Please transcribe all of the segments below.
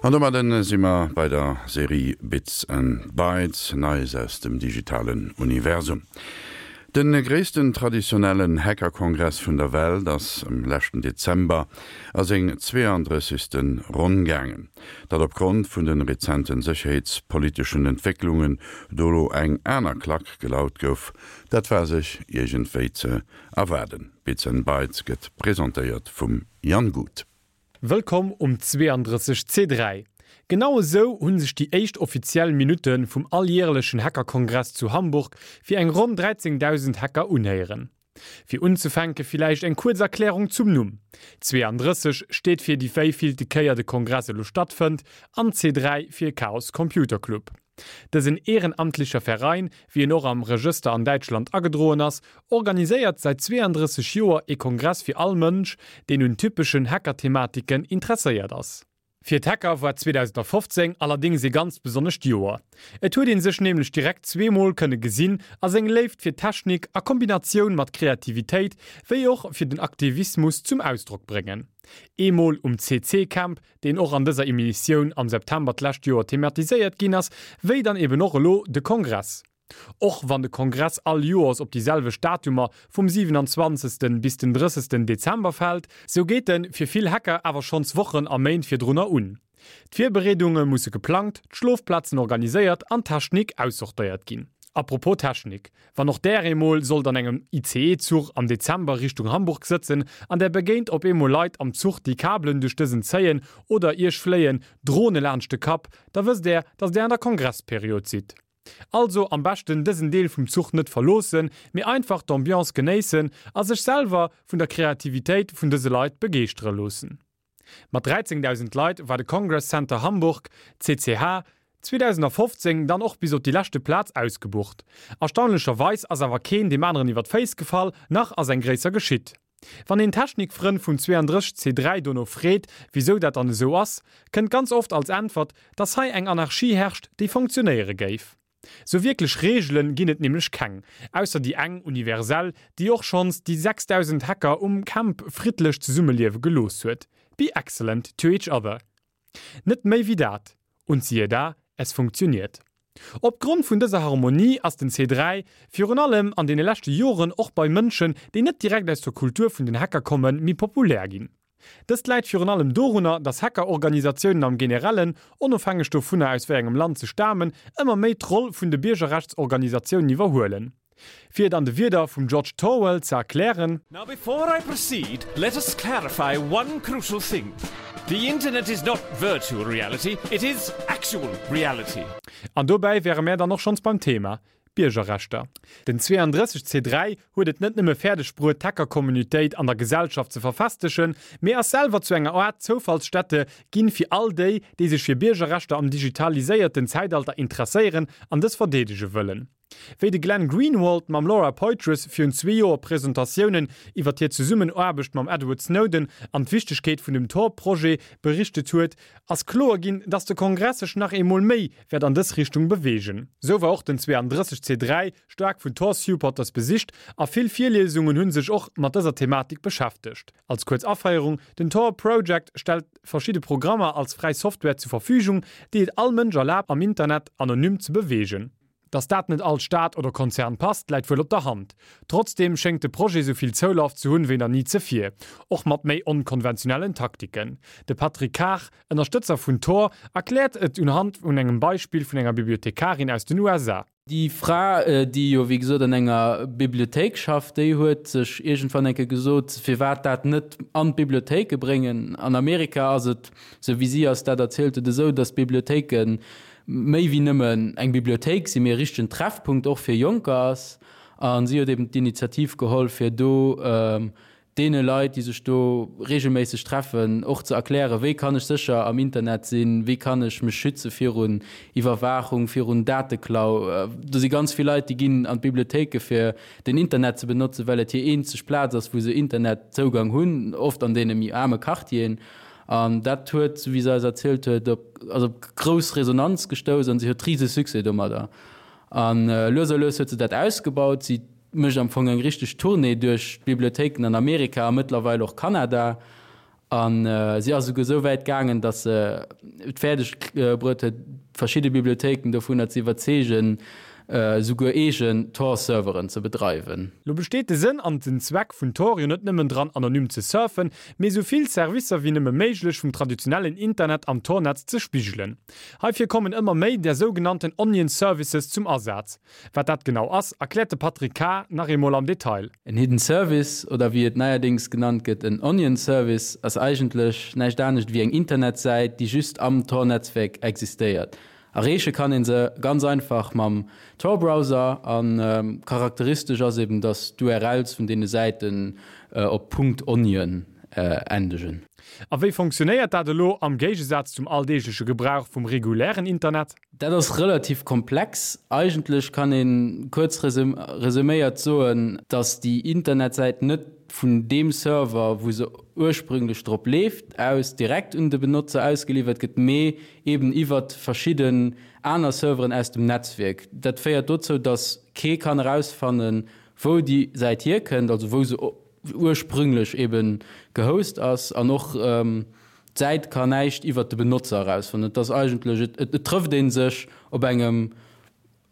An domadden si mer bei der Serie Bits and Bytes, Neies aus dem digitalen Universum. Den gréissten traditionellen Hackerkongress vun der Welt ass am leschten Dezember a seng 32. Ronn gaangen. Datt opgrond vun den rezenten sécherheetspoliteschen Entwécklungen do lo eng aner Klack gelaut gouf, dat war sech iergendwéi ze erwaarden. Bits and Bytes gëtt presentéiert vum Jan Guth. Wëllkomm um 32 C3. Genau esou hunn sech déi éischt offiziell Minutte vum alljährlechen Hackerkongress zu Hamburg fir eng ronn 13.000 Hacker unhéieren. Fir unzefänke villäicht eng kuerz Erklärung zum Numm. 32 steet fir déi wéivillte Kéier de Kongress elo stattfënnt an C3 fir Chaos Computer Club. Dësen ehrenamtlicher Verein, wéi en och am Regëster an Däitschland agedroen ass, organiséiert säit 32 Joer ee Kongress fir all Mënsch, deen un typeschen Hacker-Thematiken interesséiert ass. Fir d'Hacker war 2015 allerdéngs ee ganz besonnescht Joer. Et huet ee sech nämlech direkt zweemol kënne gesinn a seng Léift fir d'Technik a Kombinatioun mat Kreativitéit wéi och fir den Aktivismus zum Ausdrock bréngen. Eemol um CC-Camp, deen och an dëser Emissioun am September d'lescht Joer thematiséiert ginn ass, wéi dann eben och elo de Kongress. Och wann de Kongress all Joers op déi selwecht Datumer vum 27. bis den 30. Dezember fält, sou geet en fir vill Hacker awer schonns Wochen a Méint virdrunner un. D'Virbereedunge musse geplangt, d'Schlofplazen organiséiert an d'Technik aussortéiert ginn. Apropos Technik, Wann och där eemol sollt an engem ICE-Zuch am Dezember Richtung Hamburg sëtzen an där begéint op eemol Leit am Zuch déi Kabelen duerch dësen zéien oder iech fléien Drone laanscht de Kapp, da wësst där, dass där an der Kongressperiod sidd. Also am beschten dësen Deel vum Zuch net verloossen, mee einfach d'Ambiance genéissen a sech selwer vun der Kreativitéit vun dëse Leit begeeschtere loossen. Mat 13.000 Leit war de Congress Center Hamburg, CCH, 2015 dann och bis op déi leschte Plaz ausgebucht. Erstaunlecherweis ass awer keen deem aneren iwwer d'Féiss gefall, nach ass eng gréisser geschitt. Wann een Technikfrënn vum 32 C3 dono freet, wisou dat dann esou ass, kënnt ganz oft als Äntwert, dass hei eng Anarchie herrscht, déi funktionéiere géif. Sou wierklech Reegelen ginn et nämlech keng, ausser déi eng universell, déi och schonns déi 6000 Hacker um Camp friddlech zesummeliewe gelooss huet, Be excellent to each other. Net méi wéi dat. Und siehe da, es funktioniert. Op Grond vun dëser Harmonie ass den C3 virun allem an deene leschte Joren och bei Mënschen, déi net direkt aus der Kultur vun den Hacker kommen, méi populär ginn. Dëst läit virun allem dorunner, datt Hackerorganisatiounen am Generellen, onofhängeg dovunner aus wéi engem Land se stamen, ëmmer méi d'Roll vun de Biergerrechtsorganisatiounen iwwerhuelen. Fir et an de Wierder vum George Torwell ze erklären. Now before I proceed, let us clarify one crucial thing, The internet is not virtual reality, it is actual reality. An dobäi wäre mär dann och schonns beim Thema, Biergerrechter. Den 32 C3 huet et net nëmme fäerdeg bruet d'Hacker-Communitéit an der Gesellschaft ze verfestegen, mee ass selwer zu enger Aart Zoufallsstätte ginn fir all déi, déi sech fir Biergerrechter am digitaliséierten Zäitalter interesséieren an dës verdeedege wëllen. Wéi de Glenn Greenwald mam Laura Poitras virun zwee Joer Presentatiounen iwwer hir Zesummenaarbecht mam Edward Snowden an d'Wichtegkeet vun dem Tor-Projet berichtet huet, ass kloer ginn, dass de Kongress sech nach eemol méi wäert an dës Richtung beweegen. Sou war och den 32 C3 staark vun Tor-Supporters besicht a vill Virliesungen hunn sech och mat dëser Thematik beschäftegt. Als kuerz Aféierung, Den Tor Project stellt verschidde Programmer als fräi Software zu Verfügung, déi et all Mënsch erlaabt am Internet anonym ze beweegen. Dass dat net all Staat oder Konzern passt, läit wuel op der Hand. Trotzdeem schéngt de Projet sou vill Zoulaf ze hunn wéi nach ni zevir, och mat méi onkonventionellen Taktiken. De Patrick Kar, Ënnerstëtzer vun Tor, erkläert et unhand vun engem Beispill vun enger Bibliothekarin aus den USA. Déi Fra, déi jo wéi gesot an enger Bibliothéik schafft, déi huet sech iergendwann eng Kéier gesot, firwat dat net an d'Bibliothéike bréngen. An Amerika ass et, sou wéi si eis dat erzielt huet, esou, datt d'Bibliothéike méi wéi nëmmen eng Bibliothéik sinn, mee e richtegen Treffpunkt och fir Jonker ass. A si huet eben d'Initiativ geholl, fir do deene Leit, déi sech do reegelméisseg treffen, och ze erklären, wéi kann ech sécher am Internet sinn, wéi kann ech mech schütze virun Iwwerwaachung, virun Dateklau. Do si ganz vill Leit, déi ginn an d'Bibliothéike fir den Internet ze benotzen, well et hir eenzeg Plaz ass, wou se Internetzougang hunn, oft an deene méi aarme Quartieren. An dat huet, esou wéi se eis erzielt huet, op also op grouss Resonanz gestouss an si huet rise Succès domadder. A lues a lues huet se dat ausgebaut. Si mécht am Fong eng richteg Tournée duerch d'Bibliothéiken an Amerika a mëttlerweil och Kanada. A si ass esouguer esou wäit gaangen, datt se et fäerdeg bruet huet, verschidde Bibliothéiken dovunner ze iwwerzeegen, esouguer eegen Tor-Serveren ze bedreiwen. Lo besteet de Sënn an den Zweck vun Tor jo net nëmmen dran anonym ze surfen, mee esou vill Servicer wéi nëmme méiglech vum traditionellen Internet am Tor-Netz ze spigelen. Heifir kommen ëmmer méi där sougenannten Onion Services zum Asaz. Wat dat genau ass, erkläert de Patrick Kar nach eemol am Detail. En Hidden Service, oder wéi et neierdéngs genannt gëtt, en Onion Service, ass eigentlech näischt anescht wéi eng Internetsäit, déi just am Tor-Netzwerk existéiert. Erreeche kann een se ganz einfach mam Tor-Browser a charakteristesch ass eben, dass d'URLs vun deene Säiten op .onion endegen. A wéi fonctionnéiert dat elo am Géigesaz zum alldeegleche Gebrauch vum regulären Internet? Dat ass relativ komplex. Eigentlech kann ee kuerz resuméiert soen, dass déi Internetsäit net vun deem Server, wou se ursprünglech drop leeft, aus direkt un de Benotzer ausgeliwwert gëtt, mee eben iwwert verschidden aner Serveren aus dem Netzwierk. Dat féiert dozou, dass kee kann erausfannen, wou déi Säit hierkënnt, also wou se ursprünglech eben gehost ass an och d'Säit kann näischt iwwert de Benotzer erausfannen. Et ass eigentlech, et trëfft ee sech op engem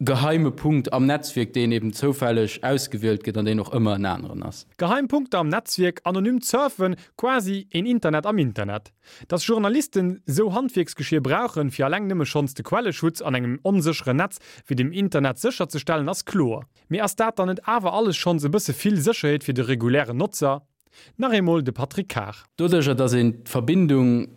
geheime Punkt am Netzwierk, deen eben zoufälleg ausgewielt gëtt an deen och ëmmer en aneren ass. Geheim Punkter am Netzwierk, anonymt Surfen, quasi een Internet am Internet. Dass Journalisten sou Handwierksgeschier brauchen, fir alleng nëmme schonns de Quelleschutz an engem onsécheren Netz wéi dem Internet sécherzestellen, ass kloer. Mee ass dat dann net awer alles schonns e bësse vill Sécherheet fir de regulären Notzer? Nach eemol de Patrick Kar. Doduercher, dass een d'Verbindung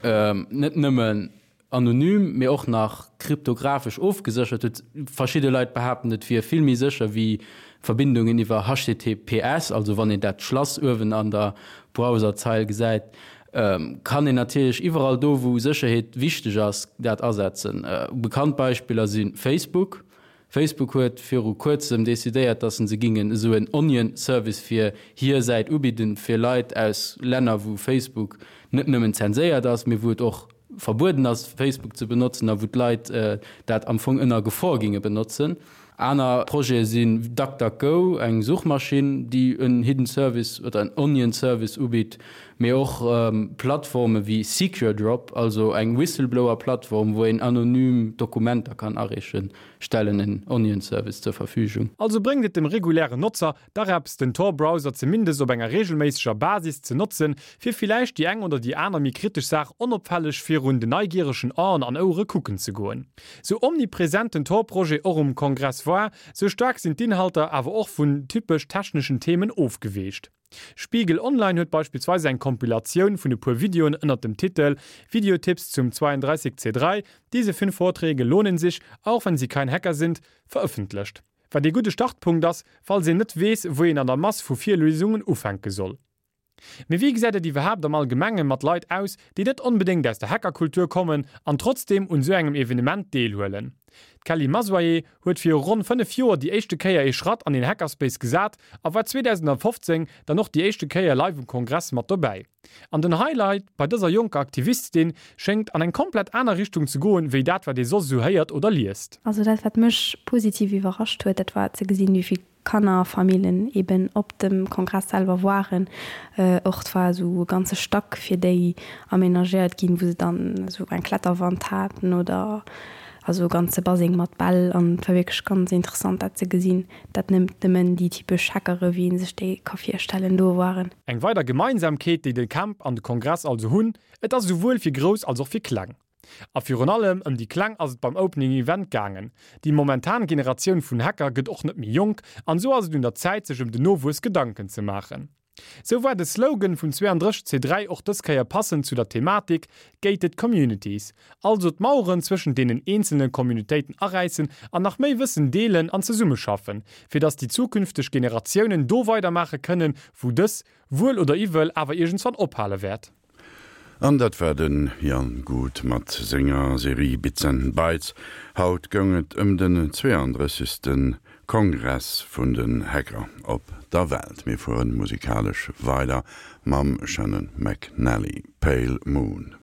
net nëmmen anonym, mee och nach kryptographesch ofgeséchert huet, verschidde Leit behaapten, et wier vill méi sécher wéi Verbindungen iwwer HTTPS, also wann een dat Schlass uewen an der Browserzeil gesäit, kann een natierlech iwwerall do, wou Sécherheet wichteg ass, dat asetzen. Bekannt Beispiller si Facebook, Facebook huet viru kuerzem decidéiert, dass se gingen esou en Onion Service fir hir Säit ubidden, fir Leit aus Länner wou Facebook net nëmmen zenséiert ass, mee wou et och verbueden ass Facebook ze benotzen a wou d'Leit dat am Fong ënner Gefor ginge benotzen. Aner Projete sinn DuckDuckGo, eng Suchmaschinn déi en Hidden Service oder en Onion Service ubitt, mee och Plattforme wéi SecureDrop, also eng Whistleblower Plattform wou een anonym Dokumenter kann areechen. stellen en Onion Service zur Verfügung. Also bréngt et dem regulären Notzer dach eppes den Tor Browser zumindest op enger regelméisseger Basis ze notzen, fir villäicht déi eng oder déi aner méi kritesch Saach onopfälleg virun de neigieregen Aen an Ouere kucken ze goen. Sou omnipresent den Tor Projet och um Kongress war, sou staark sinn d'Inhalter awer och vun typesch techneschen Themen ofgeweecht. Spiegel Online huet beispillsweis eng Kompilatioun vun e puer Videoen ënnert dem Titel Videotipps zum 32 C3, Diese fünf Vorträge lohnen sich, auch wenn Sie kein Hacker sind verëffentlecht. Wat ee gudde Startpunkt ass, falls een net weess, wou een an der Mass vu Virliesungen ufänke soll. Mee wéi gesäit et iwwerhaapt am Allgemenge mat Leit aus, déi net onbedéngt aus der Hackerkultur kommen an trotzdeem un esou engem Evenement deelhuelen? D'Kelly Masoyer huet viru ronn 5 Joer déi éischte Kéier ee Schratt an een Hackerspace gesat a war 2015 dann och déi éischte Kéier live um Kongress mat dobäi. An den Highlight bei dëser jonker Aktivistin schéngt an eng komplett aner Richtung ze goen, wéi dat wat ee soss esou héiert oder liest. Also dat wat mech positiv iwwerrascht huet, dat war ze gesinn, wéi vill Kanner a Famillen eben op dem Kongress selwer waren. Och et war esou e ganze Stack fir déi aménagéiert ginn, wou se dann esou eng Kletterwand haten oder also e ganze Baseng mat Bäll an et war wierklech ganz interessant dat ze gesinn, dat net nëmmen déi typesch Hackere wéi ee sech déi ka virstellen do waren. Eng weider Gemeinsamkeet déi de Camp an de Kongress also hunn, et ass esouwuel fir Grouss als och fir Kleng. A virun allem ëm déi Kleng ass et beim Opening Event gaangen. Déi momentan Generatioun vun Hacker gëtt och net méi jonk an esou ass et un der Zäit sech ëm den Nowuess Gedanken ze maachen. Sou war de Slogan vum 32 C3 och dës Kéier passend zu der Thematik, Gated Communities, also d'Maueren zwëschent deenen eenzelne Communitéiten aräissen an nach méi Wëssen deelen an zesummeschaffen, fir dass déi zukünfteg Generatiounen do weidermaache kënnen, wou dës, wuel oder iwwel, awer iergendswann ophale wäert. An dat war de Jan Guth mat senger Serie Bits and Bytes. Haut goung et ëm den 32. Kongress vun den Hacker op der Welt. Mir fueren musikalesch weider mam Shannon McNally, Pale Moon.